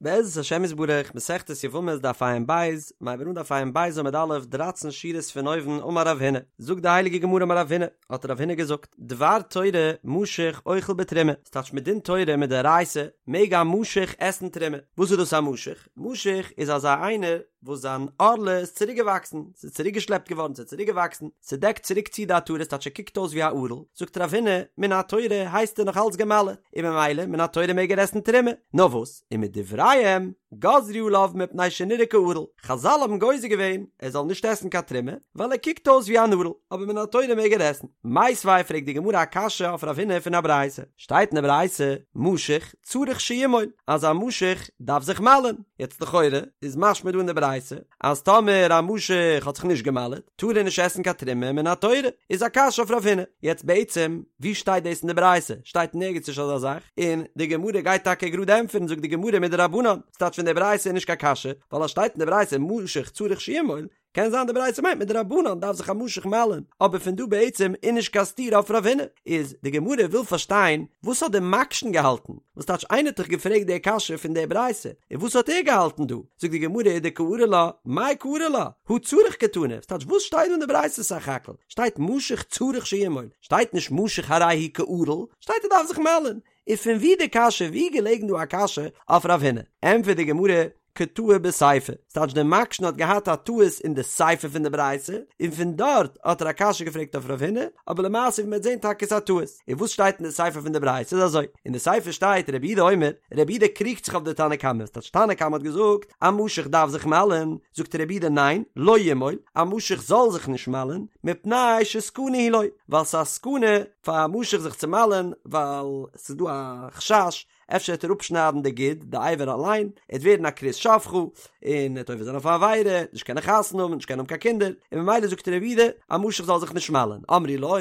בעזרת השם יתברך, מסכת יבמות דף ע"ב, מ'הייבט אן דף ע"ב עמוד א', דרייצן שורות פון אויבן, אמר רב הונא, זאגט די הייליגע גמרא אמר רב הונא, האט רב הונא געזאגט, דבר תורה משוך אוכל בתרומה, ס'טייטש מדין תורה מדאורייתא מעג א משוך עסן תרומה, וואס איז דאס א משוך? משוך איז אזא איינער וואס זיין ערלה איז צוריק געוואקסן, ס'איז צוריק געשלעפט געווארן, ס'איז צוריק געוואקסן, ס'דעקט צוריק צו די עטרה, ס'טייטש ער קוקט אויס ווי א ערל, זאגט רב הונא, מן התורה הייסט ער נאך אלץ גע'מל'עט, און ממילא מן התורה מעג ער עסן תרומה, נאר וואס, ומדבריהם גזרו עליו מפני שנראה כערל, חזל האבן גוזר געווען ער זאל נישט עסן קיין תרומה, ווייל ער קוקט אויס ווי אן ערל, אבער מן התורה מעג ער עסן. מיתיבי פרעגט די גמרא א קשיא אויף רב הונא פון א ברייתא, שטייט אין די ברייתא, משוך צריך שימול, אז א משוך דארף זיך מל'ען, יעצט לכאורה איז משמע דא אין די ברייתא אז טאמער א משוך האט זיך נישט געמל'עט טאר ער נישט עסן קיין תרומה מן התורה, איז א קשיא אויף רב הונא, יעצט בעצם ווי שטייט דאס אין די ברייתא? שטייט נערגעץ נישט אזא זאך, און די גמרא גייט טאקע גראד ענטפערן זאגט די גמרא מדרבנן, ס'טייטש פון די ברייתא איז נישט קיין קשיא, ווייל אז שטייט אין די ברייתא משוך צריך שימול, קען זיין די ברייתא מיינט מדרבנן דארף זיך א משוך מל'ען, אבער פון דא בעצם איז נישט קיין סתירה אויף רב הונא, איז די גמרא וויל פארשטיין וואס האט די מקשן געהאלטן, וואס טייטש איינער האט דאך געפרעגט די קשיא פון די ברייתא, און וואס האט ער געהאלטן דא, זאגט די גמרא ודקארי לה, מאי קרי לה, הא צריך קתני, וואס טייטש וואס שטייט דא אין די ברייתא סך הכל, שטייט משוך צריך שימול, שטייט נישט משוך הרי הוא כערל, שטייט ער דארף זיך מל'ען, און פון ווי די קשיא ווי געלעגן דא א קשיא אויף רב הונא, ענטפערט די גמרא, קא טעי בסיפא, ס'טייטש דער מקשן האט געהאט א טעות אין די סיפא פון די ברייתא, און פון דארט האט ער א קשיא געפרעגט אויף רב הונא, אבער למעשה ווי מ'וועט זען טאקע איז א טעות. און וואס שטייט אין די סיפא פון די ברייתא איז אזוי, אין די סיפא שטייט רבי יהודה אומר, רבי יהודה קריגט זיך אויף די תנא קמא, ס'טייטש תנא קמא האט געזאגט א משוך דארף זיך מל'ען, זאגט רבי יהודה ניין, לא ימול, א משוך זאל זיך נישט מל'ען, מפני שסכנה היא לו, ווייל ס'איז א סכנה פאר א משוך זיך צו מל'ען, ווייל ס'איז דא א חשש אפשר וועט ער אפשניידן די גיד, די אבר אליין, ער וועט ווערן א כרות שפכה, און ער וועט עובר זיין אויף א עבירה, נישט קענען חתונה האבן, נישט קענען האבן קיין קינדער, און ממילא זאגט רבי יהודה, א משוך זאל זיך נישט מל'ען, אמרו לו,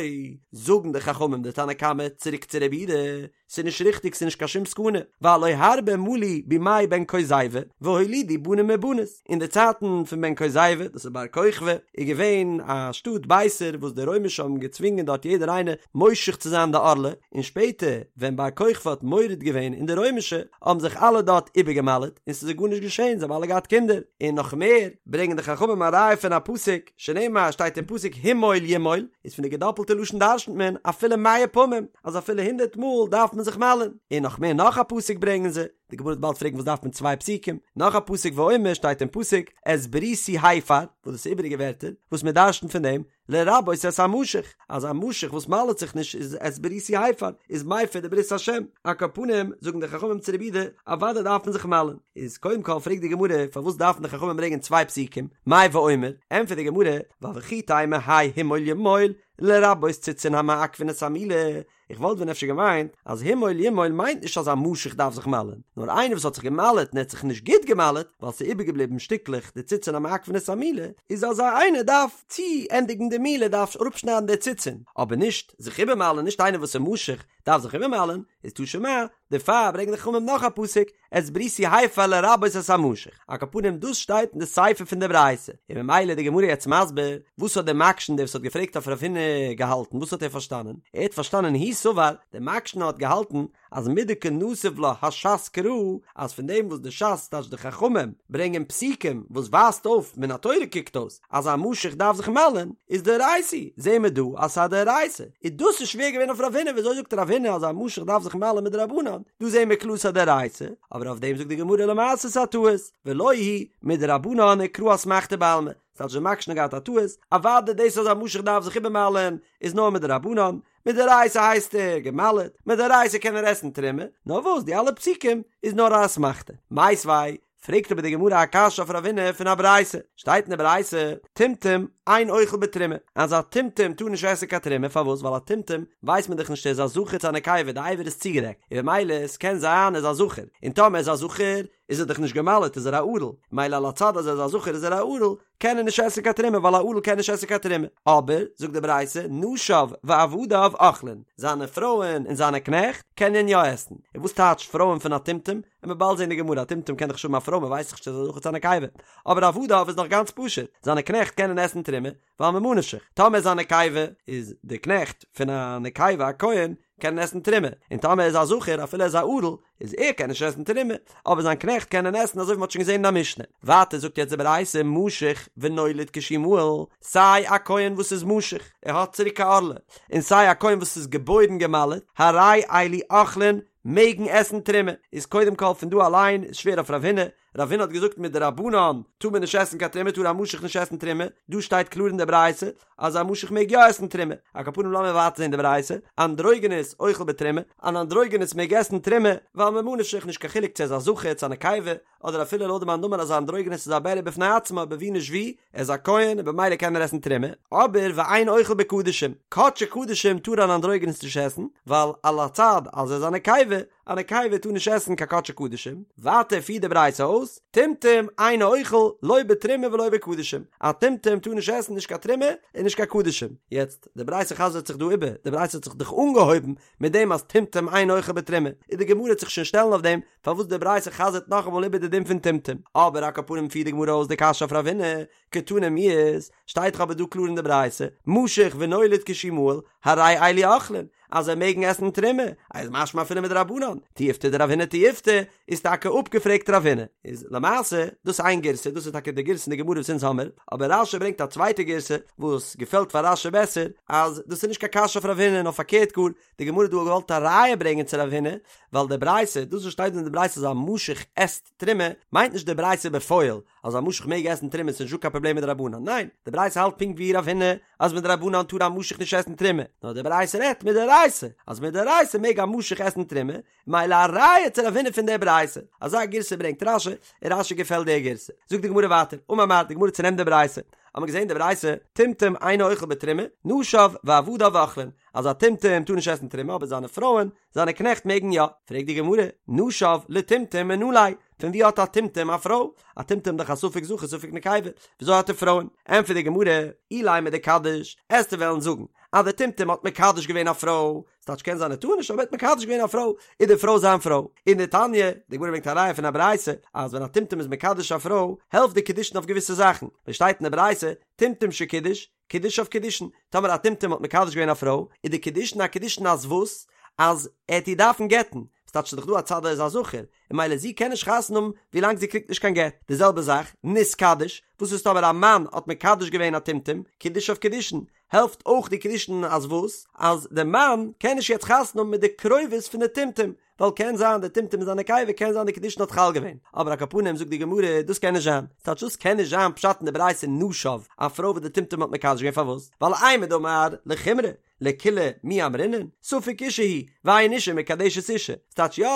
זאגן די חכמים די תנא קמא צוריק צו רבי יהודה, ס'איז נישט ריכטיג ס'איז נישט קיין שום סכנה, והלא הרבה מלו בימי בן כוזיבא, והולידו בנים ובנות, אין די צייטן פון בן כוזיבא, דאס איז בר כוכבא, איז געווען א שטאט ביתר וואס די רוימישע האבן געצווינגען דארט יעדער איינער מושך צו זיין די ערלה, און שפעטער ווען בר כוכבא האט מורד געווען אין די רוימישע האבן זיך אלע דארט איבערגעמל'עט און ס'איז זיי גארנישט געשען זיי האבן אלע געהאט קינדער, און נאך מער ברענגען די חכמים א ראיה פון א פסוק שנאמר שטייט אין פסוק המול ימול איז פון די געדאפלטע לשון דרשנ'ט מען אפילו מאה פעמים אז אפילו הונדערט מאל דארף מען זיך מל'ען, און נאך מער נאך א פסוק ברענגען זיי, די גמרא וועט באלד פרעגן וואס דארף מען צוויי פסוקים, נאך א פסוק ואומר שטייט אין פסוק את בריתי הפר, וואס דאס איז איבעריגע ווערטער וואס מען דרשנ'ט פון דעם לרבות את המשוך, אז א משוך וואס מל'ט זיך נישט איז את בריתי הפר, איז מפר די ברית השם, על כל פנים זאגן די חכמים צו רבי יהודה, אוודאי דארף מען זיך מל'ן, איז קודם כל פרעגט די גמרא פארוואס דארפן די חכמים ברענגען צוויי פסוקים, מאי ואומר, ענטפערט די גמרא, ווייל וכי תימא האי המול ימול, לרבות ציצין המעכבין את המילה, איך וואלט ווען אפשר געמיינט אז המול ימול מיינט נישט אז א משוך דארף זיך מל'ען, נאר איינער וואס האט זיך געמל'עט און ער האט זיך נישט גוט געמל'עט ווייל ס'איז איבערגעבליבן שטיקלעך די ציצין המעכבין את המילה, איז אזא איינער דארף צו ענדיגן די מילה דארף אראפשניידן די ציצין, אבער נישט זיך איבערמל'ען, נישט איינער וואס איז משוך דארף זיך איבערמל'ען, איז תא שמע, דערפאר ברענגען די חכמים נאך א פסוק, את בריתי הפר לרבות את המשוך, על כל פנים דאס שטייט אין די סיפא פון די ברייתא, און ממילא איז די גמרא יעצט מסביר וואס האט דער מקשן דער וואס האט געפרעגט אויף רב הונא געהאלטן, וואס האט ער פארשטאנען? ער האט פארשטאנען הוא סבר, דער מקשן האט געהאלטן אז מדקא נסיב לה הש"ס קרא, אז פון דעם וואס די ש"ס טייטש די חכמים ברענגען פסוקים וואס ווייזט אויף מן התורה קוקט אויס אז א משוך דארף זיך מל'ען, איז דאורייתא, זעהן מיר דא אז ס'איז א דאורייתא, איז דאס איז שווער געווען אויף רב הונא, וויאזוי זאגט רב הונא אז א משוך דארף זיך מל'ען מדרבנן, דא זעהן מיר קלאר ס'איז א דאורייתא, אבער אויף דעם זאגט די גמרא למעשה ס'איז א טעות, ולא היא מדרבנן וקרא אסמכתא בעלמא, ס'טייטש דער מקשן האט געהאט א טעות, אוודאי דאס אז א משוך דארף זיך איבערמל'ען איז נאר מדרבנן, מדאורייתא הייסט ער געמל'עט, מדאורייתא קען ער עסן תרומה, נאר וואס די אלע פסוקים איז נאר א אסמכתא. מיתיבי פרעגט אבער די גמרא א קשיא אויף רב הונא פון א ברייתא, שטייט אין די ברייתא, טומטום אין אוכל בתרומה, אז א טומטום טאר נישט עסן קיין תרומה, פארוואס? ווייל א טומטום ווייסט מען דאך נישט ער איז א זכר צו א נקבה, די אבר איז צוגעדעקט, און במילא עס קען זיין ער איז א זכר, און טאמער ער איז א זכר איז ער דאך נישט געמל'עט איז ער א ערל, מילא על הצד אז ער איז א זכר איז ער א ערל, קען ער נישט עסן קיין תרומה ווייל א ערל קען נישט עסן קיין תרומה, אבער זאגט די ברייתא נשיו ועבדיו אוכלין, זיינע פרויען און זיינע קנעכט קענען יא עסן, און וואס טייטש פרויען פון א טומטום? וועט מען באלד זען אין די גמרא, א טומטום קען דאך נישט האבן א פרוי מען ווייסט דאך נישט צו עס איז א זכר צו א נקבה, אבער עבדיו איז נאך גאנץ פשוט, זיינע קנעכט קענען עסן תרומה. תרומה, ווייל ממה נפשך, טאמער איז א נקבה, איז די קנעכט פון א נקבה א כהן, קענען עסן תרומה, און טאמער איז א זכר אפילו ער איז א ערל, איז ער קען נישט עסן תרומה, אבער זיין קנעכט קענען עסן אזוי ווי מ'האט שוין געזען אין א משנה. ווייטער זאגט יעצט די ברייתא משוך ונולד כשהוא מהול, סיי א כהן וואס איז משוך, ער האט צוריק א ערלה, און סיי א כהן וואס איז געבוירן גע'מל'ט, הרי אלו אוכלין, מעגן עסן תרומה. איז קודם כל פון דא אליין איז שווער אויף רב הונא, רב הונא האט געזאגט מדרבנן טאר מען נישט עסן קיין תרומה טאר א משוך נישט עסן תרומה, דא שטייט קלאר אין די ברייתא אז א משוך מעג יא עסן תרומה, על כל פנים לאמיר ווייטער זען די ברייתא, אנדרוגינוס אוכל בתרומה, אן אנדרוגינוס מעג עסן תרומה, ווייל ממה נפשך נישט קיין חילוק צו ער איז א זכר צו א נקבה, אדער אפילו לויט די מאן דאמר אז א אנדרוגינוס איז א בריה בפני עצמו אבער ווי נישט ווי, ער איז א כהן און במילא קען ער עסן תרומה, אבער ואין אוכל בקדשים, קדשי קדשים טאר אן אנדרוגינוס נישט עסן, ווייל על הצד אז ער איז א נקבה, א נקבה טאר נישט עסן קיין קדשי קדשים, ווייטער פירט די ברייתא אויס, טומטום אינו אוכל לא בתרומה ולא בקדשים, א טומטום טאר נישט עסן נישט קיין תרומה און נישט קיין קדשים, יעצט די ברייתא חזר'ט זיך דא איבער, די ברייתא האט זיך דאך אנגעהויבן מיט דעם אז טומטום אינו אוכל בתרומה, און די גמרא וועט זיך שוין שטעלן אויף דעם פארוואס די ברייתא חזר'ט נאכאמאל איבער די דין פון טומטום, אבער על כל פנים פירט די גמרא אויס די קשיא אויף רב הונא, קתני מיהת, שטייט דאך אבער דא קלאר אין די ברייתא, משוך ונולד כשהוא מהול, הרי אלו אוכלין, אז זיי מעגן עסן תרומה, איז משמע אפילו מדרבנן, תיובתא דרב הונא תיובתא, איז טאקע אפגעפרעגט רב הונא. איז למעשה, דאס איז איין גירסא, דאס איז טאקע די גירסא אין די גמרא וואס אונז האמיר, אבער רש"י ברענגט א צווייטע גירסא, וואס געפעלט פאר רש"י בעסער, אז דאס איז נישט קיין קשיא אויף רב הונא, נאר פארקערט גאר, די גמרא האט דא געוואלט א ראיה ברענגען צו רב הונא, ווייל די ברייתא, דאס וואס שטייט דא אין די ברייתא אז א משוך עסט תרומה, מיינט נישט די ברייתא בפועל, אז א משוך מעג עסן תרומה ס'איז נישטא קיין פראבלעם מדרבנן, ניין, די ברייתא האלט פונקט ווי רב הונא אז מדרבנן טאר א משוך נישט עסן תרומה, נאר די ברייתא רעדט מדאורייתא, אז מדאורייתא מעג א משוך עסן תרומה, מילא א ראיה צו רב הונא פון די ברייתא, אזא גירסא ברענגט רש"י, און רש"י געפעלט די גירסא. זאגט די גמרא ווייטער, אמר מר, די גמרא צונעמט די ברייתא, האט מען געזען די ברייתא, טומטום אינו אוכל בתרומה, נשיו ועבדיו אוכלין, אז א טומטום טאר נישט עסן תרומה אבער זיינע פרויען, זיינע קנעכט מעגן יא. פרעגט די גמרא, נשיו לטומטום מנא ליה, פון ווי האט א טומטום א פרוי? א טומטום דאך א ספק זכר ספק נקבה, וויאזוי האט ער פרויען? ענטפערט די גמרא, אילימא דקדיש, עסטו וועלן זאגן אז דער טומטום האט מקדש געווען א פרוי, ס'טייטש קען זיין ער טאר נישט אבער ער האט מקדש געווען א פרוי, איז די פרוי זיין פרוי. און דתניא, די גמרא ברענגט א ראיה פון א ברייתא, אז ווען א טומטום איז מקדש א פרוי, העלפט די קידושין אויף געוויסע זאכן, ווי שטייט אין די ברייתא, טומטום שקידש, קידושיו קידושין, טאמער א טומטום האט מקדש געווען א פרוי, איז די קידושין א קידושין אז וואס? אז ער העט איר דארפן גט'ן, ס'טייטש ס'איז דאך דא א צד ער איז א זכר, און מילא זי קען נישט חתונה האבן ווילאנג זי קריגט נישט קיין גט, די זעלבע זאך, נתקדש, וואס איז טאמער א מאן האט מקדש געווען א טומטום, קידושיו קידושין, העלפט אויך די קידושין אז וואס? אז די מאן קען נישט יעצט חתונה האבן מיט די קרובות פון די טומטום, ווייל קען זיין די טומטום איז א נקבה קען זיין די קידושין האט חל געווען, אבער על כל פנים זאגט די גמרא דאס קען נישט זיין, ס'טייטש דאס קען נישט זיין פשט אין די ברייתא נשיו, א פרוי וואס די טומטום האט מקדש געווען פארוואס? ווייל אימר דאמר לחומרא, לקולא מי אמרינן, ספק אישה הוא, ואין אישה מקדשת אישה, ס'טייטש יא,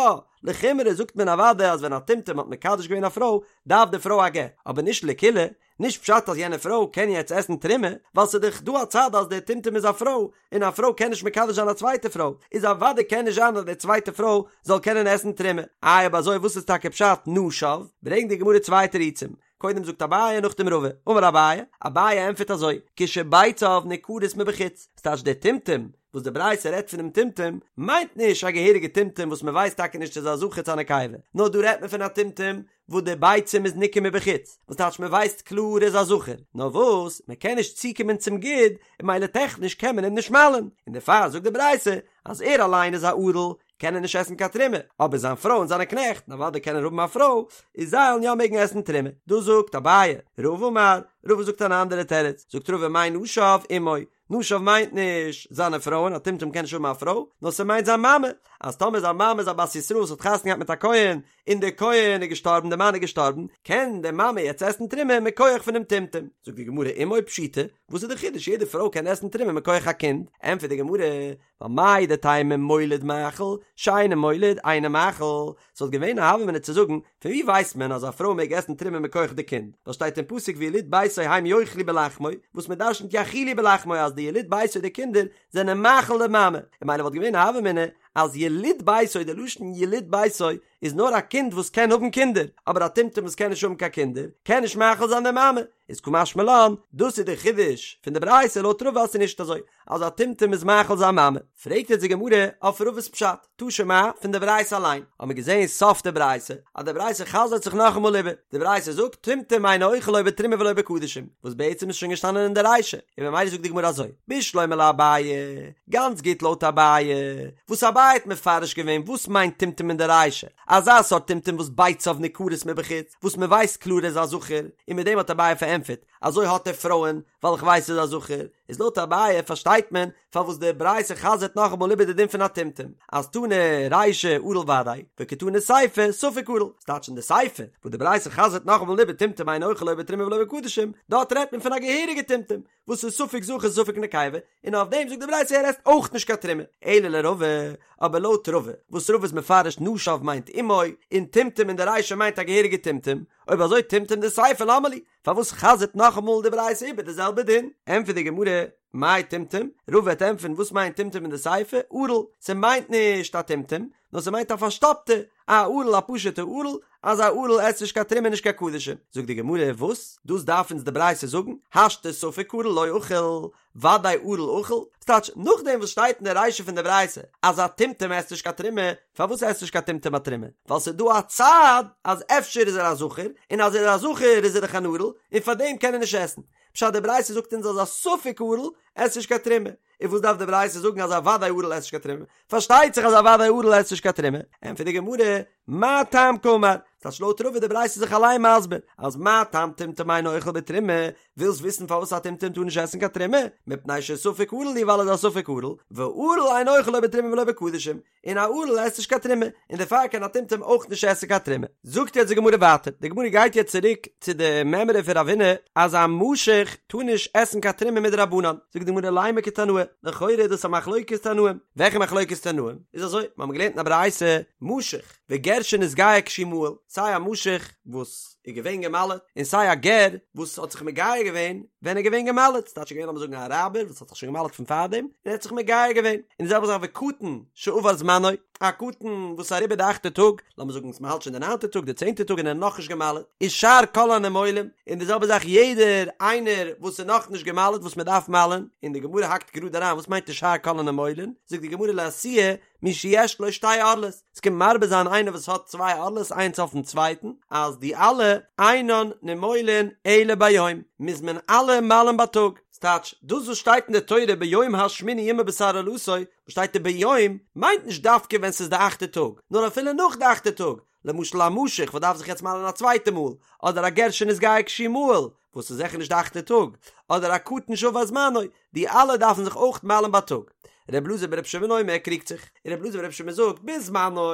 לחומרא זאגט מען אוודאי אז ווען א טומטום האט מקדש געווען א פרוי דארף די פרוי א גט, אבער נישט לקולא, נישט פשט אז יענע פרוי קען יעצט עסן תרומה, ווייל ס'איז דאך דא א צד אז דער טומטום איז א פרוי, און א פרוי קען נישט מקדש זיין א צווייטע פרוי, איז אוודאי קען נישט זיין אז די צווייטע פרוי זאל קענען עסן תרומה. איי אויב אזוי וואס איז טאקע פשט נשיו? ברענגט די גמרא צוויי תירוצים, קודם זאגט אביי נאכדעם רבא, אמר אביי, אביי ענטפערט אזוי, כשביציו ניכרות מבחוץ, ס'טייטש דער טומטום וואס די ברייתא רעדט פונעם טומטום, מיינט נישט א געהעריגע טומטום וואס מ'ווייסט טאקע נישט צו ס'איז א זכר צו א נקבה, נאר דא רעדט מען פון א טומטום וואס די ביצים איז ניכר מבחוץ, וואס טייטש מען ווייסט קלאר ער איז א זכר, נאר וואס מען קען נישט צוקומען צום גיד, און מילא טעכניש קען מען אים נישט מל'ן, און דערפאר זאגט די ברייתא אז ער אליין איז א ערל, קען ער נישט עסן קיין תרומה, אבער זיין פרוי און זיינע קנעכט, און אוודאי קען ער האבן א פרוי, איז זיי וועלן יא מעגן עסן תרומה. דאס זאגט אביי, רבא אמר, רבא זאגט אן אנדערע תירוץ, זאגט רבא מאי נשיו אמו, נשיו מיינט נישט זיינע פרויען, א טומטום קען נישט האבן א פרוי, נאר ס'מיינט זיין מאמע, אז טאמער זיין מאמע איז א בת ישראל וואס האט חתונה געהאט מיט א כהן, און דער כהן איז געשטארבן, דער מאן איז געשטארבן, קען די מאמע יעצט עסן תרומה מכח פונעם טומטום. זאגט די גמרא אמו פשיטא, וואס איז די חידוש יעדע פרוי קען עסן תרומה מכח א קינד? ענטפערט די גמרא, ווייל מהו דתימא מוליד מאכיל, שאינו מוליד אינו מאכיל, ס'וואלט געווען א הוה אמינא צו זאגן, פון ווי ווייסט מען אז א פרוי מעג עסן תרומה מכח די קינד? ווייל שטייט אין פסוק ויליד ביתו הם יאכלו בלחמו, וואס מען דרשנ'ט יאכילו בלחמו אז די יליד ביתו די קינדער זענען מאכיל די מאמע, און מילא וואלט געווען א הוה אמינא אז יליד ביתו די לשון יליד ביתו. איז נאר א קינד וואס קען האבן קינדער, אבער א טומטום וואס קען נישט האבן קיין קינדער, קען נישט מאכיל זיין די מאמע, איז קא משמע לן, דאס איז די חידוש פון די ברייתא לויט רבא אז ס'איז נישט אזוי אז א טומטום איז מאכיל זיין מאמע. פרעגט יעצט די גמרא אויף רבא'ס פשט, תא שמע, פון די ברייתא אליין, האמיר געזען סוף די ברייתא, אז די ברייתא חזר'ט זיך נאכאמאל איבער, די ברייתא זאגט טומטום אינו אוכל לא בתרומה ולא בקדשים, וואס בעצם איז שוין געשטאנען אין די רישא, און ממילא זאגט די גמרא אזוי, בשלמא לאביי, גאנץ גוט לויט אביי, וואס אביי האט מפרש געווען וואס מיינט טומטום אין די רישא, אזא סארט טומטום וואס ביציו ניכרות מבחוץ, וואס מען ווייסט קלאר ער איז א זכר, און מיט דעם האט אביי פארענטפערט, אזוי האט ער פרויען, ווייל איך ווייס ער איז א זכר, איז לויט אביי פארשטייט מען פארוואס די ברייתא חזר'ט נאכאמאל איבער די דין פון א טומטום, אז תנא רישא ערל ודאי, וקתני סיפא ספק ערל, ס'טייטש אין די סיפא וואס די ברייתא חזר'ט נאכאמאל איבער טומטום אינו אוכל לא בתרומה ולא בקדשים, דארט רעדט מען פון א געהעריגע טומטום, וואס איז ספק זכר ספק נקבה, און אויף דעם זאגט די ברייתא ער עסט אויך נישט קיין תרומה, אלא לרבא, אבער לויט רבא, וואס רבא איז מפרש נשיו מיינט אמו, און טומטום אין די רישא מיינט א געהעריגע טומטום, אויב אזוי טומטום דסיפא למה לי, פארוואס חזר'ט נאכאמאל די ברייתא איבער די זעלבע דין? ענטפערט די גמרא, מאי טומטום? רבא וועט ענטפערן וואס מיינט טומטום אין די סיפא, ערל, ס'מיינט נישט א טומטום, נאר ס'מיינט א פארשטאפטע, א ערל א פשוטע ערל, אז א ערל עסט נישט קיין תרומה נישט קיין קדשים. זאגט די גמרא, וואס? דאס דארף אונז די ברייתא זאגן? השתא ספק ערל לא אכיל, ודאי ערל אכיל? ס'טייטש, נאכדעם וואס שטייט אין די רישא פון די ברייתא אז א טומטום עסט נישט קיין תרומה, פארוואס עסט נישט קיין טומטום א תרומה? ווייל ס'איז דא א צד אז אפשר איז ער א זכר, און אז ער איז א זכר איז ער דאך אן ערל, און פארדעם קען ער נישט עסן. פשט די ברייתא זאגט אונז אז א ספק ערל עסט נישט קיין תרומה. און וואס דארף די ברייתא זאגן אז א ודאי ערל עסט נישט קיין תרומה? פארשטייט זיך אז א ודאי ערל עסט נישט קיין תרומה. ענטפערט די גמרא, מה טעם קאמר? ס'טייטש לויט רבא איז די ברייתא זיך אליין מסביר אז מה טעם טומטום אינו אוכל בתרומה, ווילסט וויסן פארוואס א טומטום טאר נישט עסן קיין תרומה? מפני שספק ערל הוא ווייל ער איז א ספק ערל, וערל אינו אוכל לא בתרומה ולא בקדשים, און א ערל עסט נישט קיין תרומה, און דערפאר קען א טומטום אויך נישט עסן קיין תרומה. זאגט יעצט די גמרא ווייטער, די גמרא גייט יעצט צוריק צו די מימרא פון רב הונא אז א משוך טאר נישט עסן קיין תרומה מדרבנן, זאגט די גמרא לימא כתנאי, לכאורה איז דאס א מחלוקת תנאים, וועלכע מחלוקת תנאים? איז אזוי, מיר האבן געלערנט אין א ברייתא, משוך וגר שנתגייר כשהוא מהול, סיי א משוך וואס איז געווען גע'מל'ט, און סיי א גר וואס האט זיך מגייר געווען ווען ער איז געווען גע'מל'ט, ס'טייטש געווען לאמיר זאגן א אראבער וואס האט זיך שוין גע'מל'ט פון פארדעם, און ער האט זיך מגייר געווען, און די זעלבע זאך וקטן שעבר זמנו, א קטן וואס איז אריבער די אכטע טאג, לאמיר זאגן אז מ'האלט שוין די ניינטע טאג, די צענטע טאג און ער איז נאכנישט גע'מל'ט, ושאר כל הנימולים, און די זעלבע זאך יעדער איינער וואס איז נאכנישט גע'מל'ט וואס מ'דארף מל'ן, און די גמרא האקט גראד אריין וואס מיינט ושאר כל הנימולין, זאגט די גמרא לאתויי מי שיש לו שתי ערלות, עס קומט מרבה זיין איינער וואס האט צוויי ערלות איינס אויפן צווייטן, אז די אלע אינן נימולין אלא ביום, מוז מען אלע מל'ן בייטאג, ס'טייטש, דאס וואס שטייט אין די תורה ביום השמיני ימול בשר ערלתו, וואס שטייט דא ביום, מיינט נישט דווקא ווען ס'איז די אכטע טאג, נאר אפילו נאך די אכטע טאג, למשל א משוך וואס דארף זיך יעצט מל'ן א צווייטע מאל, אדער א גר שנתגייר כשהוא מהול, וואס איז זיכער נישט די אכטע טאג, אדער א קטן שעבר זמנו, די אלע דארפן זיך אויך מל'ן בייטאג. ר' אלעזר בר' שמעון אומר קריגט זיך, און ר' אלעזר בר' שמעון זאגט בזמנו,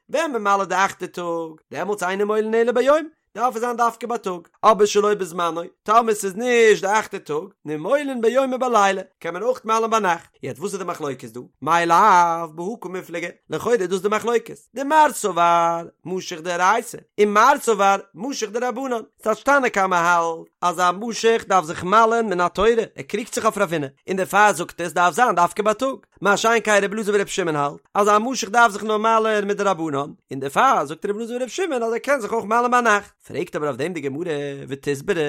ווען מען מל'ט די אכטע טאג, דעמאלטס אין נימולין אלא ביום, דארף עס זיין דווקא בייטאג, אבער שלא בזמנו, טאמער ס'איז נישט די אכטע טאג, נימולין ביום ובלילה, קען מען אויך מל'ן ביינאכט. יעצט וואס איז די מחלוקת דא? מאי לאו בהא קמיפלגי, לכאורה איז דאס די מחלוקת. דמר סבר משוך דאורייתא, און מר סבר משוך דרבנן. ס'טייטש תנא קמא האלט אז א משוך דארף זיך מל'ן מן התורה, ער קריגט זיך אויף רב הונא, און דערפאר זאגט ער ס'דארף זיין דווקא בייטאג. מה שאין כן רבי אלעזר ברבי שמעון האלט אז א משוך דארף זיך נאר מל'ן מדרבנן, און דערפאר זאגט רבי אלעזר ברבי שמעון אז ער קען זיך אויך מל'ן ביינאכט. פרעגט אבער אויף דעם די גמרא, ותסברא,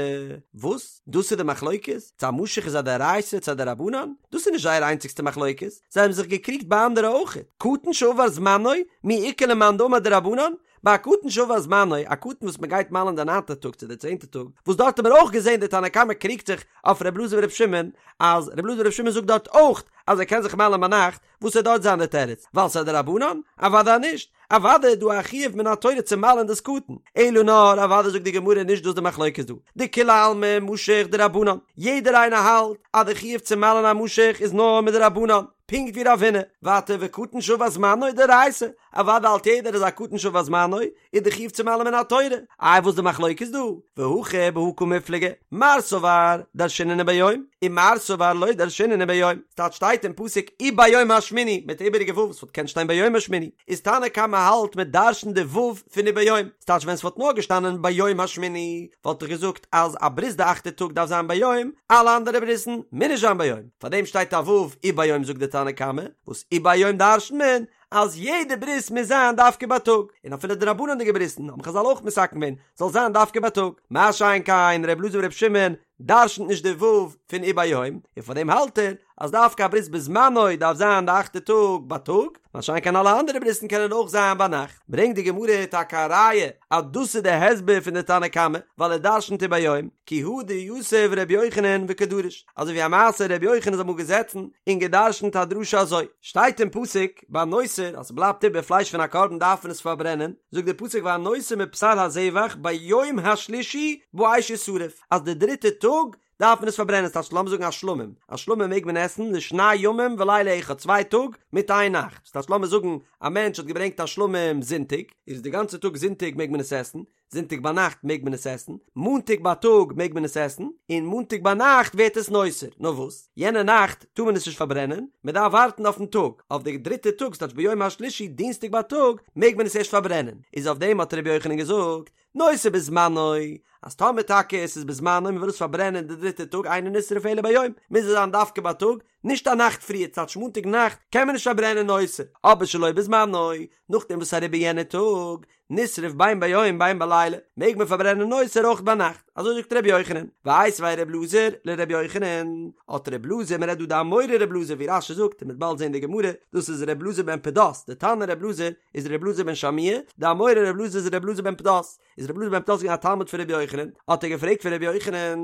וואס? דאס איז די מחלוקת? צו א משוך איז א דאורייתא צו א דרבנן? דאס איז נישט זייער איינציגסטע מחלוקת, זיי האבן זיך געקריגט ביי אנדערע אויך. קטן שעבר זמנו, מי איכא למאן דאמר דרבנן? ביי א קטן שעבר זמנו, א קטן וואס מען גייט מל'ן די ניינטע טאג צו די צענטע טאג, וואס דארט האט מען אויך געזען די תנא קמא קריגט זיך אויף ר' אלעזר בר' שמעון, אז ר' אלעזר בר' שמעון זאגט דארט אויך אז ער קען זיך מל'ן ביינאכט, וואס וועט דארט זיין די תירוץ? ווייל ס'איז א דרבנן? אוודאי נישט! אוודאי איז דא א חיוב מן התורה צו מל'ן דאס קטן, אלא נאר אוודאי זאגט די גמרא נישט דאס די מחלוקת דא, דכולי עלמא משוך דרבנן, יעדער איינער האלט אז די חיוב צו מל'ן א משוך איז נאר מדרבנן, פונקט ווי רב הונא, ווייטער וקטן שעבר זמנו דאורייתא, אוודאי האלט יעדער אז א קטן שעבר זמנו איז די חיוב צו מל'ן מן התורה, איי וואס די מחלוקת דא? והכא בהא קמיפלגי, מר סבר דרשינן וביום, ומר סבר לא דרשינן וביום, ס'טייטש שטייט אין פסוק וביום השמיני מיט די איבעריגע ו' וואס וואלט געקענט שטיין ביום השמיני, איז תנא קמא האלט מען דרש'נט די ו' פון וביום, ס'טייטש ווען ס'וואלט נאר געשטאנען ביום השמיני וואלט איך געזאגט אז א ברית די אכטע טאג דארף זיין ביום, אלע אנדערע ברית'ן מוז נישט זיין ביום, פארדעם שטייט א ו' וביום זאגט די תנא קמא, וואס וביום דרש'נט מען? אז יעדע ברית מוז זיין דווקא בייטאג, און אפילו דרבנן'דיגע ברית'ן האבן חזל אויך מתקן געווען זאל זיין דווקא בייטאג, מה שאין כן ר' אלעזר בר' שמעון דרשנ'ט נישט די ו' פון וביום, און פאר דעם האלט ער אז דווקא א ברית בזמנו דארף זיין די אכטע טאג בייטאג, מה שאין כן אלע אנדערע ברית'ן קענען אויך זיין ביינאכט. ברענגט די גמרא טאקע א ראיה אז דאס איז די הסבר פון די תנא קמא, ווייל ער דרשנ'ט וביום, כי הא דיתיב ר' יוחנן וקדריש, אזוי ווי א מעשה ר' יוחנן איז אמאל געזעצן און געדרשנ'ט א דרשה אזוי, שטייט אין פסוק ביי נותר אז ס'בלייבט איבער פלייש פון א קרבן דארף מען עס פארברענען, זאגט די פסוק והנותר מבשר הזבח ביום השלישי באש ישרף, אז די דריטע טאג דארף מען עס פארברענען, ס'טייטש לאמיר זאגן א שלמים, א שלמים מעג מען עסן לשני ימים ולילה אחד, צוויי טאג מיט איין נאכט, ס'טייטש לאמיר זאגן א מענטש האט געברענגט א שלמים זונטאג, איז די גאנצע טאג זונטאג מעג מען עס עסן, זונטאג ביינאכט מעג מען עס עסן, מאנטאג בייטאג מעג מען עס עסן, און מאנטאג ביינאכט ווערט עס נותר, נאר וואס, יענע נאכט טאר מען עס נישט פארברענען, מען דארף ווארטן אויפן טאג, אויף די דריטע טאג, ס'טייטש ביום השלישי דינסטאג בייטאג מעג מען עס ערשט פארברענען, איז אויף דעם האט ר' יוחנן געזאגט, נותר בזמנו, אז טאמער טאקע עס איז בזמנו מען וויל עס פארברענען די דריטע טאג אינו נשרף אלא ביום, מוז עס זיין דווקא בייטאג, נישט א נאכט פריער, ס'טייטש מאנטאג נאכט קען מען נישט פארברענען נותר, אבער שלא בזמנו, נאכדעם וואס אריבער יענע טאג, נשרף בין ביום בין בלילה, מעג מען פארברענען נותר אויך ביינאכט, אזוי זאגט ר' יוחנן, ואיתיביה ר' אלעזר לר' יוחנן, האט ר' אלעזר, מען רעדט דא די אמורא ר' אלעזר ווי רש"י זאגט און מ'וועט באלד זען די גמרא, דאס איז ר' אלעזר בן פדת, די תנא ר' אלעזר איז ר' אלעזר בן שמוע, די אמורא ר' אלעזר איז ר' אלעזר בן פדת, איז ר' אלעזר בן פדת געווען א תלמיד פון ר' יוחנן, האט ער געפרעגט פון ר' יוחנן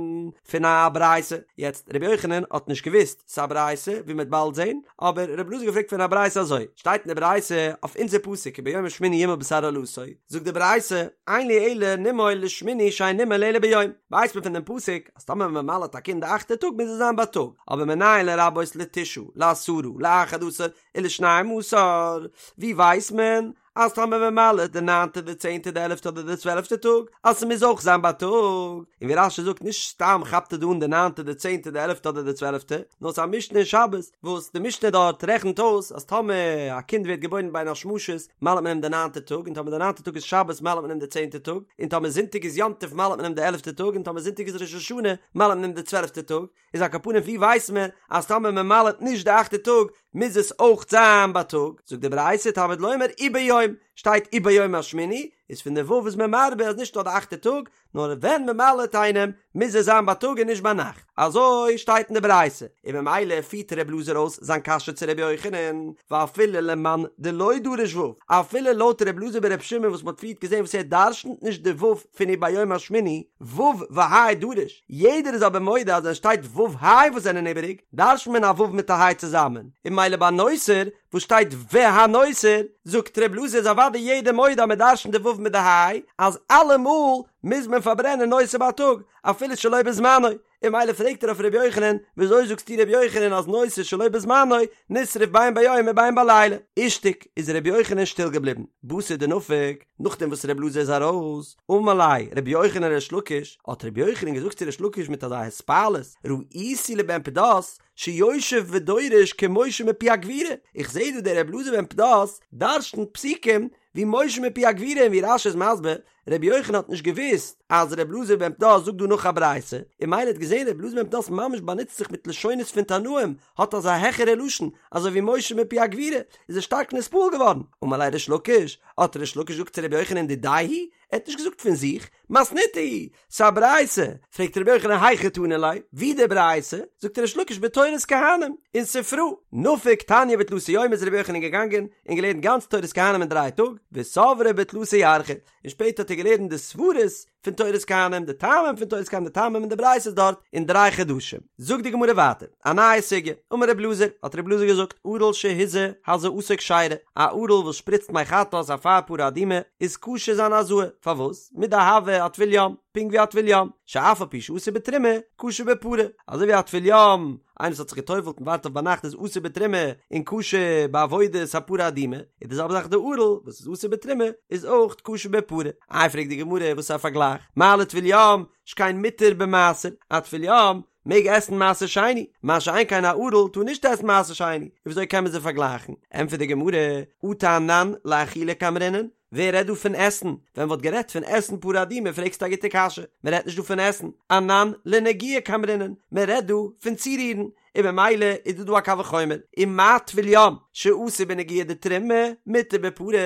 פון א ברייתא, יעצט ר' יוחנן האט נישט געוואוסט ס'איז א ברייתא ווי מ'וועט באלד זען, אבער ר' אלעזר האט געפרעגט פון א ברייתא אזוי, שטייט אין די ברייתא אויף אונזער פסוק וביום השמיני ימול בשר ערלתו, זאגט די ברייתא, אין לי אלא נימול לשמיני שאין נימול אלא ביום, ווייסט מען פון דעם פסוק אז טאמער מען מל'עט א קינד די אכטע טאג מוז עס זיין בייטאג, אבער מנין לרבות לתשעה, לעשרה, לאחד עשר, ולשנים עשר, ווי ווייסט מען אז טאמער מען מל'עט די ניינטע די צענטע די עלעפטע אדער די צוועלעפטע טאג אז ס'מוז אויך זיין בייטאג, און ווי רש"י זאגט נישט סתם כאפט ער דא אן די ניינטע די צענטע די עלעפטע אדער די צוועלעפטע, נאר ס'איז א משנה אין שבת וואס די משנה דארט רעכנט אויס אז טאמער א קינד ווערט געבוירן בין השמשות מל'עט מען אים די ניינטע טאג און טאמער די ניינטע טאג איז שבת מל'עט מען אים די צענטע טאג און טאמער זונטאג איז יום טוב מל'עט מען אים די עלעפטע טאג און טאמער זונטאג איז ראש השנה מל'עט מען אים די צוועלעפטע טאג, איז על כל פנים ווי ווייסט מען אז טאמער מען מל'עט נישט די אכטע טאג מוז עס אויך זיין בייטאג, זאגט די ברייתא תלמוד לומר וביום, שטייט וביום השמיני, איז פון די ו' איז מען מרבה אז נישט נאר די אכטע טאג, נאר ווען מען מל'עט איינעם מוז עס זיין בייטאג און נישט ביינאכט, אזוי שטייט אין די ברייתא, און ממילא פירט ר' אלעזר אויס זיין קשיא צו ר' יוחנן, ואפילו למאן דלא דריש ו', אפילו לויט ר' אלעזר בר' שמעון וואס מען האט פריערט געזען וואס ער דרשנ'ט נישט די ו' פון וביום השמיני, ו' וה' דריש, יעדער איז אבער מודה אז ווען שטייט ו' ה' וואס זענען איבעריג, דרש'נט מען א ו' מיט א ה' צוזאמען, און ממילא ביי נותר וואס שטייט והנותר, זאגט ר' אלעזר איז אוודאי יעדער מודה אז מען דרש'נט די ו' מיט די ה', אז אלעמאל מוז מען פארברענען נותר בייטאג, אפילו שלא בזמנו, און ממילא פרעגט ער אויף ר' יוחנן, וויאזוי זאגסטו ר' יוחנן אז נותר שלא בזמנו נשרף בין ביום ובין בלילה? אישתיק, איז ר' יוחנן שטיל געבליבן. בתר דנפק, נאכדעם וואס ר' אלעזר איז ארויס, אמר ליה ר' יוחנן לריש לקיש, האט ר' יוחנן געזאגט צו ריש לקיש מיט אזא התפעלות, ראיתי לבן פדת שיושב ודורש כמשה מפי הגבורה, איך זעה דא דער ר' אלעזר בן פדת דרש'נט פסוקים ווי משה מפי הגבורה און ווי רש"י איז מסביר, רבי יוחנן האט נישט געוואוסט אז רבי אלעזר בן פדת זאגט דא נאך א ברייתא, און ממילא האט געזען רבי אלעזר בן פדת ממש באנוצט זיך מיט לשונות פון תנאים, האט אזא העכערע לשון, אזוי ווי משה מפי הגבורה, איז ער שטארק נתפעל געווארן. אמר ליה ריש לקיש, האט ריש לקיש געזאגט צו רבי יוחנן דידיה היא, ער האט נישט געזאגט פון זיך, מתניתא היא, ס'איז א ברייתא, פרעגט רבי יוחנן היכי תנא ליה, ווי די ברייתא? זאגט ריש לקיש בתורת כהנים, אין ספרא, נפק תניא בתלתא יומי איז רבי יוחנן געגאנגען און געלערנט גאנץ תורת כהנים אין דריי טאג, וסברה בתלתא ירחי, און שפעטער האט ער געלערנט די סברות פון תורת כהנים, די טעמים פון תורת כהנים, די טעמים אין די ברייתות דארט, אין דריי חדשים. זאגט די גמרא ווייטער, א נייע סוגיא, אמר רב אלעזר, האט רב אלעזר געזאגט, ערל שהזה הזאתו כשרה, א ערל וואס שפריצט מי חטאת אפר פרה אדומה, איז כשר זיין הזאה, פארוואס? מדהוה אטבול יום, פונקט ווי א טבול יום, שאף על פי שאסור בתרומה, כשר בפרה, אזוי ווי א טבול יום, איינער וואס האט זיך געטובלט און ווארט אויף ביינאכט איז אסור בתרומה און כשר בעבודת הפרה האדומה, איז די זעלבע זאך די ערל וואס איז אסור בתרומה איז אויך כשר בפרה. איי פרעגט די גמרא וואס איז א פארגלייך, מה לטבול יום שכן מותר במעשר, א טבול יום מעג עסן מעשר שני, מה שאין כן א ערל טאר נישט עסן מעשר שני, און וויאזוי קען מען זיי פארגלייכן? ענטפערט די גמרא, אטו אנן לאכילה קאמרינן? ווער רעדט דא פון עסן? ווען מ'וואלט גערעדט פון עסן פרה אדומה פרעגסטו א גוטע קשיא, מ'רעדט נישט דא פון עסן, אנן לנגיעה קאמרינן, מ'רעדט דא פון צורירן, און במילא איז דא דא א קל וחומר, ומה טבול יום שאסור בנגיעה דתרומה מותר בפרה,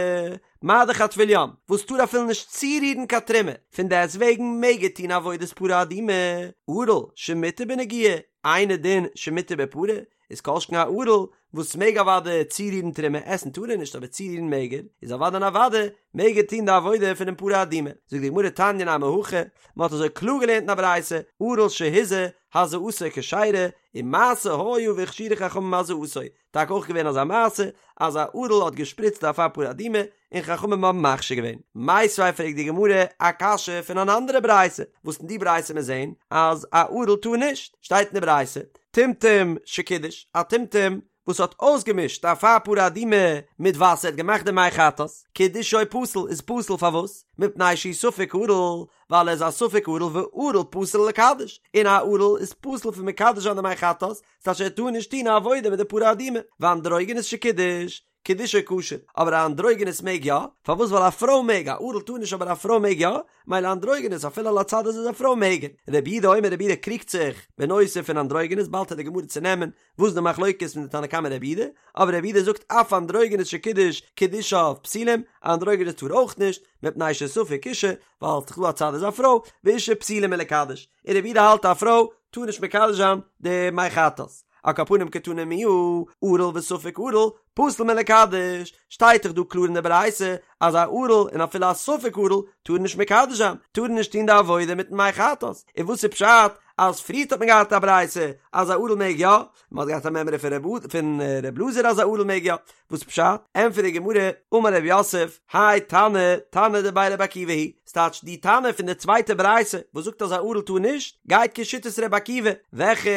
מה דאך א טבול יום וואס טאר אפילו נישט צורירן קיין תרומה, פון דעסט וועגן מעג ער טון עבודת פרה אדומה, ערל שמותר בנגיעה, אינו דין שמותר בפרה, איז כל שכן א ערל וואס מעג אוודאי צורירן תרומה, עסן טאר ער נישט אבער צורירן מעג ער, איז אוודאי און אוודאי מעג ער טון די עבודה פונעם פרה אדומה. זאגט די גמרא תניא נמי הכי, מען האט אזוי קלאר געלערנט אין א ברייתא, ערל שהוזה, הזאתו כשרה, ומעשה היה והכשירו חכמים הזאתו, טאקע אויך געווען אזא מעשה אז א ערל האט געשפריצט די אפר פרה אדומה און חכמים האבן מכשיר געווען. מיתיבי פרעגט די גמרא א קשיא פון אן אנדערע ברייתא, וואס אין די ברייתא מיר זעהן אז א ערל טאר נישט, שטייט אין די ברייתא, טומטום שקידש, א טומטום וואס האט אויסגעמישט אפר פרה אדומה מיט וואסער האט געמאכט די מי חטאת, קידושו פסול איז פסול פארוואס? מפני שהוא ספק ערל, ווייל ער איז א ספק ערל וערל פסול לקדש, און א ערל איז פסול פון מקדש זיין די מי חטאת, ס'טייטש ער טאר נישט טון א עבודה מיט די פרה אדומה, ואנדרוגינוס שקידש, קידושו כשר, אבער א אנדרוגינוס מעג יא, פארוואס ווייל א פרוי מעג, א ערל טאר נישט אבער א פרוי מעג יא, מילא אנדרוגינוס אפילו על הצד אז איז א פרוי מעג ער. רבי יהודה אומר רבי יהודה קריגט זיך בנושא פון אנדרוגינוס באלד וועט די גמרא צונעמען וואס איז די מחלוקת פון די תנא קמא רבי יהודה, אבער רבי יהודה זאגט אף אנדרוגינוס שקידש קידושיו פסולים, א אנדרוגינוס טאר אויך נישט, מפני שספק אישה, ווייל ס'איז דא א צד איז א פרוי, ואישה פסולה מלקדש, און רבי יהודה האלט א פרוי טאר נישט מקדש זיין די מי חטאת. על כל פנים קתני מיהא, ערל וספק ערל, פסול מלקדש, שטייט דאך דא קלאר אין די ברייתא אז א ערל און אפילו א ספק ערל טאר נישט מקדש זיין, טאר נישט טון די עבודה מיטן מי חטאת, און וואס איז פשט אז פריערט האט מען געהאט א ברייתא אז א ערל מעג יא, מען האט געהאט א מימרא פון פון ר' אלעזר אז א ערל מעג יא, וואס פשט? ענטפערט די גמרא, אמר רב יוסף, האי תנא, תנא דבי רבי עקיבא היא, ס'טייטש די תנא פון די צווייטע ברייתא וואס זאגט אז א ערל טאר נישט, גייט כשיטת רבי עקיבא, וועלכע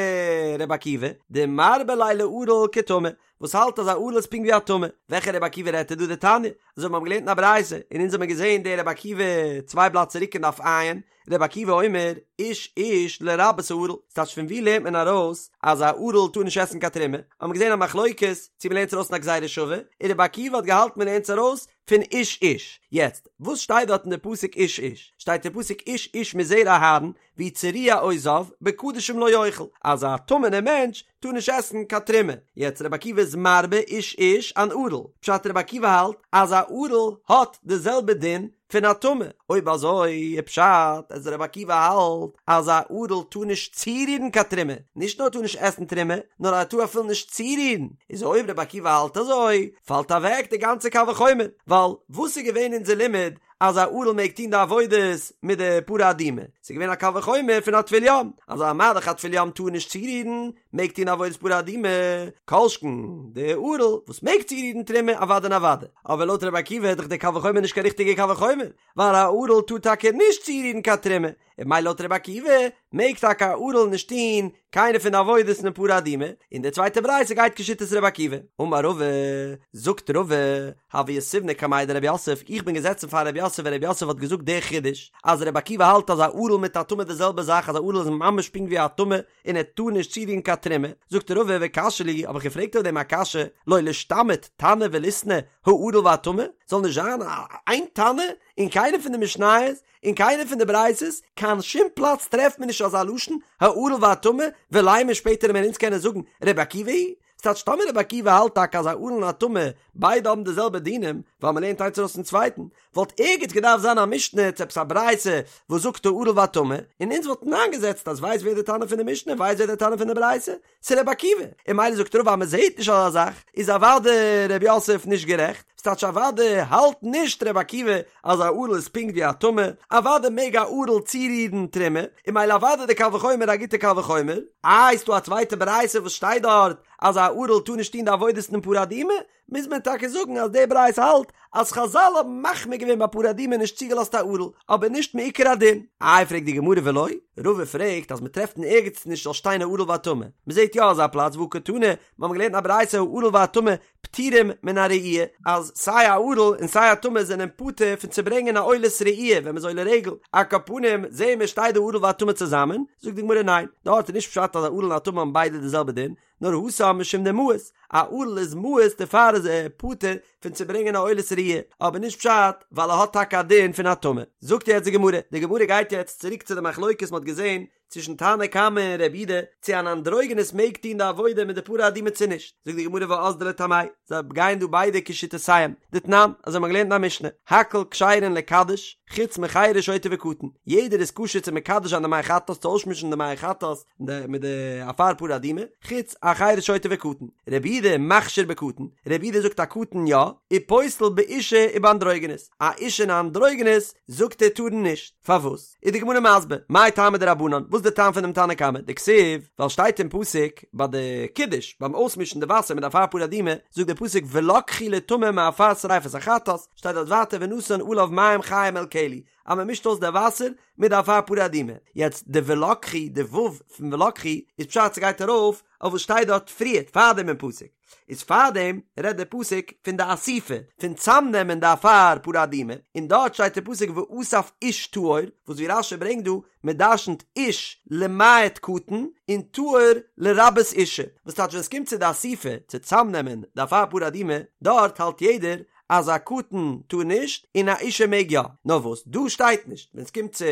רבי עקיבא? דמרבה ליה לערל כטמא, וואס האלט אז א ערל איז פונקט ווי א טמא, וועלכע רבי עקיבא רעדט ער דא? דתניא, אזוי ווי מיר האבן געלערנט אין א ברייתא, און אונז האבן געזען די רבי עקיבא צוויי בלאט צוריק אין דף ע', רבי עקיבא אומר, איש איש לרבות הערל, ס'טייטש פון ווי לערנט מען ארויס אז א ערל טאר נישט עסן קיין תרומה? האבן מיר געזען א מחלוקת צו מ'לערנט עס ארויס פון א גזירה שווה, און רבי עקיבא האט געהאלטן מ'לערנט עס ארויס פון איש איש. יעצט, וואס שטייט דארט אין די פסוק איש איש? שטייט אין פסוק איש איש מזרע אהרן, והוא צרוע או זב, בקדשים לא יאכל, אז א טמא'נער מענטש טאר נישט עסן קיין תרומה. יעצט רבי עקיבא איז מרבה איש איש אן ערל, פשט רבי עקיבא האלט אז א ערל האט די זעלבע דין פון א טמא, אויב אזוי איז פשט אז רבי עקיבא האלט אז א ערל טאר נישט צורירן קיין תרומה, נישט נאר טאר נישט עסן תרומה, נאר ער טאר אפילו נישט צורירן, איז אויב רבי עקיבא האלט אזוי, פאלט אוועק די גאנצע קל וחומר, ווייל וואס איז געווען אונזער לימוד אז א ערל מעג טון די עבודות מיט די פרה אדומה, ס'איז געווען א קל וחומר פון א טבול יום, אז מה דאך א טבול יום טאר נישט צורירן, מעג טון עבודת פרה אדומה, כל שכן די ערל וואס מעג צורירן תרומה אוודאי און אוודאי, אבער לויט רבי עקיבא איז דאך די קל וחומר נישט קיין ריכטיגע קל וחומר, ווייל א ערל טאר טאקע נישט צורירן קיין תרומה, און ממילא לויט רבי עקיבא מעג טאקע א ערל נישט טון קיינע פון די עבודות אין פרה אדומה, און די צווייטע ברייתא גייט כשיטת רבי עקיבא. אמר רבא, זאגט רבא, הוה יתיבנא קמיה דרב יוסף, איך בין געזעצן פאר רב יוסף ווען רב יוסף האט געזאגט די חידוש, אז רבי עקיבא האלט אז א ערל מיט א טמא די זעלבע זאך אז א ערל איז ממש פונקט ווי א טמא, און ער טאר נישט צורירן קיין תרומה, זאגט רבא וקשיא לי, האב איך געפרעגט אויף דעם א קשיא, לא לישתמיט תנא וליתני הערל והטמא, זאל נישט זיין איין תנא אין קיינע פון די משניות, אין קיינע פון די ברייתות, קיין שום פלאץ טרעפט מען נישט אזא לשון הערל והטמא, ולימא שפעטער וועלן אונז קענען זאגן רבי עקיבא היא ס'טייטש טאמער רבי עקיבא האלט טאקע אז א ערל און א טמא ביידע האבן די זעלבע דינים, ווייל מ'לערנט איינס ארויס פון צווייטן, וואלט ערגעץ געדארפט זיין א משנה צו עפעס א ברייתא וואס זאגט הערל והטמא, און אונז וואלטן איינגעזעצט אז ווייסט ווער די תנא פון די משנה ווייסט ווער די תנא פון די ברייתא? ס'איז רבי עקיבא, און ממילא זאגט רבא אז מ'זעהט נישט אזא זאך, איז אוודאי רב יוסף נישט גערעכט, ס'טייטש אוודאי האלט נישט רבי עקיבא אז א ערל איז פונקט ווי א טמא, אוודאי מעג א ערל צורירן תרומה, און ממילא אוודאי די קל וחומר א גוטע קל וחומר. איי ס'דא א צווייטע ברייתא וואס שטייט דארט אז א ערל טאר נישט טון די עבודות אין פרה אדומה, מוז מען טאקע זאגן אז די ברייתא האלט אז חזל האבן מחמיר געווען ביי פרה אדומה נישט צוגעלאזט א ערל, אבער נישט מעיקר הדין. איי פרעגט די גמרא ולא, רבא פרעגט אז מ'טרעפט אין ערגעץ נישט זאל שטיין הערל והטמא, מ'זעט יא אזא פלאץ והא קתני, מ'האבן געלערנט אין א ברייתא הערל והטמא פטורים מן הראי', אז סיי א ערל און סיי א טמא זענען פטור פון צו ברענגען א עולת ראי' ווען מ'איז עולה רגל, על כל פנים זעהן מיר שטייט דא ערל והטמא צוזאמען, זאגט די גמרא ניין, דארט איז נישט פשט אז א ערל און א טמא האבן ביידע די זעלבע דין, נאר התם משום דמאיס, א ערל איז מאוס דערפאר איז. איז ער פטור פון צו ברענגען א עולת ראיה, אבער נישט פשט ווייל ער האט טאקע א דין פון א טמא. זאגט יעצט די גמרא, די גמרא גייט יעצט צוריק צו די מחלוקת מ'האט געזען צווישן תנא קמא און רבי יהודה צו אן אנדרוגינוס מעג טון די עבודה מיט די פרה אדומה צו נישט, זאגט די גמרא ואזדו לטעמייהו, זיי גייען דא ביידע כשיטותיהם, דתנן, אזוי האט מען געלערנט אין א משנה, הכל כשרין לקדש, חוץ מחרש שוטה וקטן, יעדער איז כשר צו מקדש זיין די מי חטאת צו אויסמישן די מי חטאת מיט די אפר פרה אדומה, חוץ א חרש שוטה וקטן, רבי יהודה מכשיר בקטן, רבי יהודה זאגט א קטן יא, ופוסל באשה ובאנדרוגינוס, א אשה און א אנדרוגינוס זאגט ער טארן נישט, פארוואס? איז די גמרא מסביר, מאי טעמא דרבנן, וואס איז די טעם פון דעם תנא קמא, דכתיב, ווייל שטייט אין פסוק ביי די קידוש, ביים אויסמישן די וואסער מיט די אפר פרה אדומה, זאגט דער פסוק ולקחו לטמא מעפר שריפת החטאת, שטייט דארט ווייטער ונתן עליו מים חיים אל כלי, אז מען מישט אויס די וואסער מיט די אפר פרה אדומה, יעצט די ולקחו, די ו' פון ולקחו, איז פשט ס'גייט ארויף אויף וואס שטייט דארט פריערט פארדעם אין פסוק, איז פארדעם רעדט דער פסוק פון די אסיפה, פון צאמנעמען די אפר פרה אדומה, און דארט שטייט דער פסוק ואסף איש טהור, וואס ווי רש"י ברענגט דא, מען דרשנ'ט איש למעט קטן, און טהור לרבות אישה, וואס טייטש ווען עס קומט צו די אסיפה, צו צאמנעמען די אפר פרה אדומה, דארט האלט יעדער אז א קטן טאר נישט און א אישה מעג יא, נאר וואס דא שטייט נישט, ווען עס קומט צו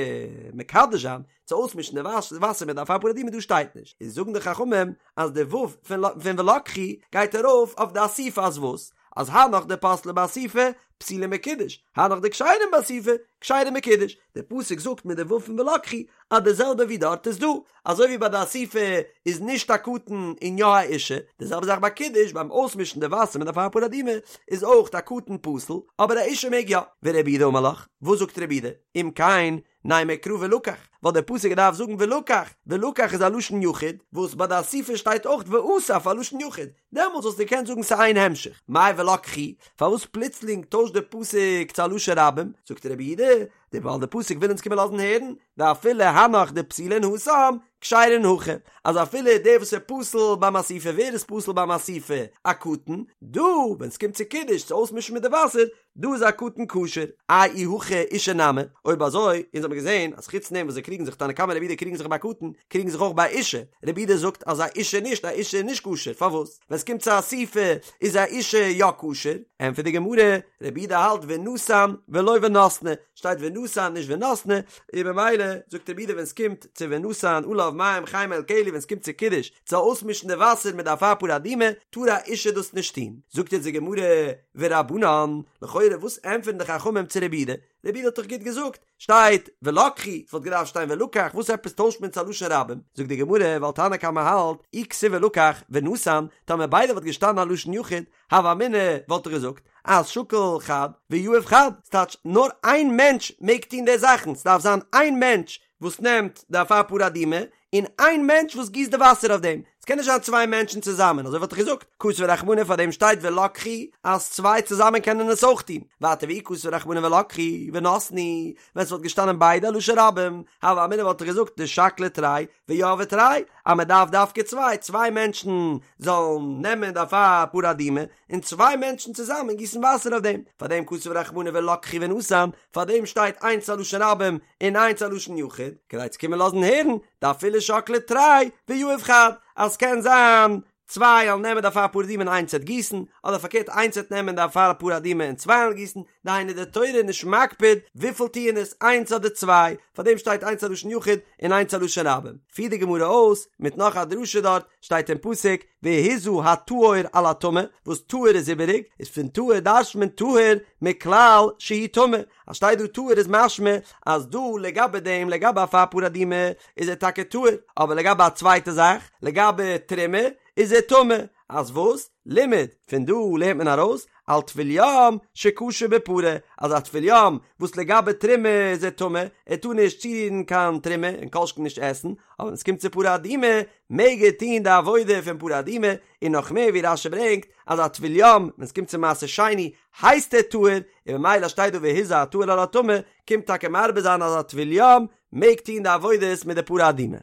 מקדש זיין, צו אויסמישן די וואסער מיט די אפר פרה אדומה דא שטייט נישט, איז זאגן די חכמים אז די ו' פון ולקחו גייט ארויף אויף די אסיפה אז וואס? אז הנך דפסלי באסיפה פסולים בקידוש, הנך דכשרים באסיפה כשרים בקידוש, די פסוק זאגט מיט די ו' פון ולקחו אז די זעלבע ווי דארט איז דא, אזוי ווי ביי די אסיפה איז נישט א קטן און יא א אישה, די זעלבע זאך ביי קידוש ביים אויסמישן די וואסער מיט די אפר פרה אדומה איז אויך א קטן פסול אבער א אישה מעג יא. ורבי יהודה אמר לך, וואס זאגט רבי יהודה? אם כן, נימא קרא ולקח, וואלט דער פסוק געדארפט זאגן ולקח, ולקח איז א לשון יחיד, וואס ביי די אסיפה שטייט אויך ואסף א לשון יחיד, דעמאלטס וואלסטו געקענט זאגן ס'איז איין המשך, מאי ולקחו, פארוואס פלוצלינג טוישט דער פסוק צו א לשון רבים, זאגט רבי יהודה, ווייל דער פסוק וויל אונז קומען לאזן הערן, דאפילו הנך דפסילין התם, כשרין הכא, אז אפילו דער וואס איז פסול ביים אסיפה, ווער איז פסול ביים אסיפה? א קטן, דא ווען ס'קומט צו קידוש צו אויסמישן מיט די וואסער, דא איז א קטן כשר, איי אי הכי אישה נמי, אויב אזוי, אונז האבן געזען אז חוץ דעם וואס זיי קריגן זיך תנא קמא רבי יהודה קריגן זיך ביי קטן, קריגן זיך אויך ביי אישה, רבי יהודה זאגט אז א אישה נישט, א אישה איז נישט כשר, פארוואס? ווען ס'קומט צו אסיפה איז א אישה יא כשר, ענטפערט די גמרא, רבי יהודה האלט ונתן ולא ונתנה, שטייט ונתן נישט ונתנה, און במילא זאגט רבי יהודה ווען ס'קומט צו ונתן עליו מים חיים אל כלי ווען ס'קומט צו קידוש צו אויסמישן די וואסער מיט די אפר פרה אדומה טאר א אישה דאס נישט טון, זאגט יעצט די גמרא ורבנן, לכאורה וואס ענטפערן די חכמים צו רבי יהודה? רבי יהודה האט דאך גוט געזאגט, שטייט ולקחו, ס'וואלט געדארפט שטיין ולקח, וואס עפעס טוישט מען צו א לשון רבים? זאגט די גמרא, ווייל תנא קמא האלט, אי כתיב ולקח ונתן, טאמער ביידע וואלט געשטאנען א לשון יחיד, הוה אמינא וואלט איך געזאגט אז שקיל חד ויהיב חד, ס'טייטש נאר איין מענטש מעג טון די זאכן, ס'דארף זיין איין מענטש וואס נעמט די אפר פרה אדומה, און איין מענטש וואס גיסט די וואסער אויף דעם, ס'קען נישט זיין צוויי מענטשן צוזאמען, אזוי וואלט איך געזאגט, כתב רחמנא פאר דעם שטייט ולקחו אז צוויי צוזאמען קענען עס אויך טון, ווייטער ואי כתב רחמנא ולקחו ונתנו, ווען ס'וואלט געשטאנען ביידע א לשון רבים, הוה אמינא וואלט איך געזאגט דשקלי תרי ויהבי תרי, אז מען דארף דווקא צוויי, צוויי מענטשן זאלן נעמען די אפר פרה אדומה, און צוויי מענטשן צוזאמען גיסן וואסער אויף דעם, פאר דעם כתב רחמנא ולקחו ונתן, פאר דעם שטייט איינס א לשון רבים און איינס א לשון יחיד, כדי צו קומען לאזן הערן, דאפילו שקלי תרי ויהיב חד, אז ס'קען זיין צוויי וועלן נעמען די אפר פרה אדומה און איינס וועט גיסן, אדער פארקערט איינס וועט נעמען די אפר פרה אדומה און צוויי וועלן גיסן, דהיינו די תורה איז נישט מקפיד וויפיל טוען עס איינס אדער צוויי, פארדעם שטייט איינס א לשון יחיד און איינס א לשון רבים. פירט די גמרא אויס מיט נאך א דרשה דארט, שטייט אין פסוק והזה הטהור על הטמא, וואס טהור איז איבעריג, איז פון טהור דרש'ט מען טהור מכלל שהוא טמא, אז שטייט דא טהור איז משמע אז דא לגבי דעם לגבי אפר פרה אדומה איז ער טאקע טהור, אבער לגבי א צווייטע זאך, לגבי תרומה, איז ער טמא, אז וואס? לימד, פון דא לערנט מען ארויס, על טבול יום שכשר בפרה, אז א טבול יום וואס לגבי תרומה איז ער טמא, ער טאר נישט צורירן קיין תרומה און כל שכן נישט עסן, אבער ווען עס קומט צו פרה אדומה מעג ער טון די עבודה פון פרה אדומה, און נאך מער ווי רש"י ברענגט אז א טבול יום ווען עס קומט צו מעשר שני הייסט ער טהור, און ממילא שטייט דא והזה הטהור על הטמא, קומט טאקע מרבה זיין אז א טבול יום מעג טון די עבודות מיט די פרה אדומה.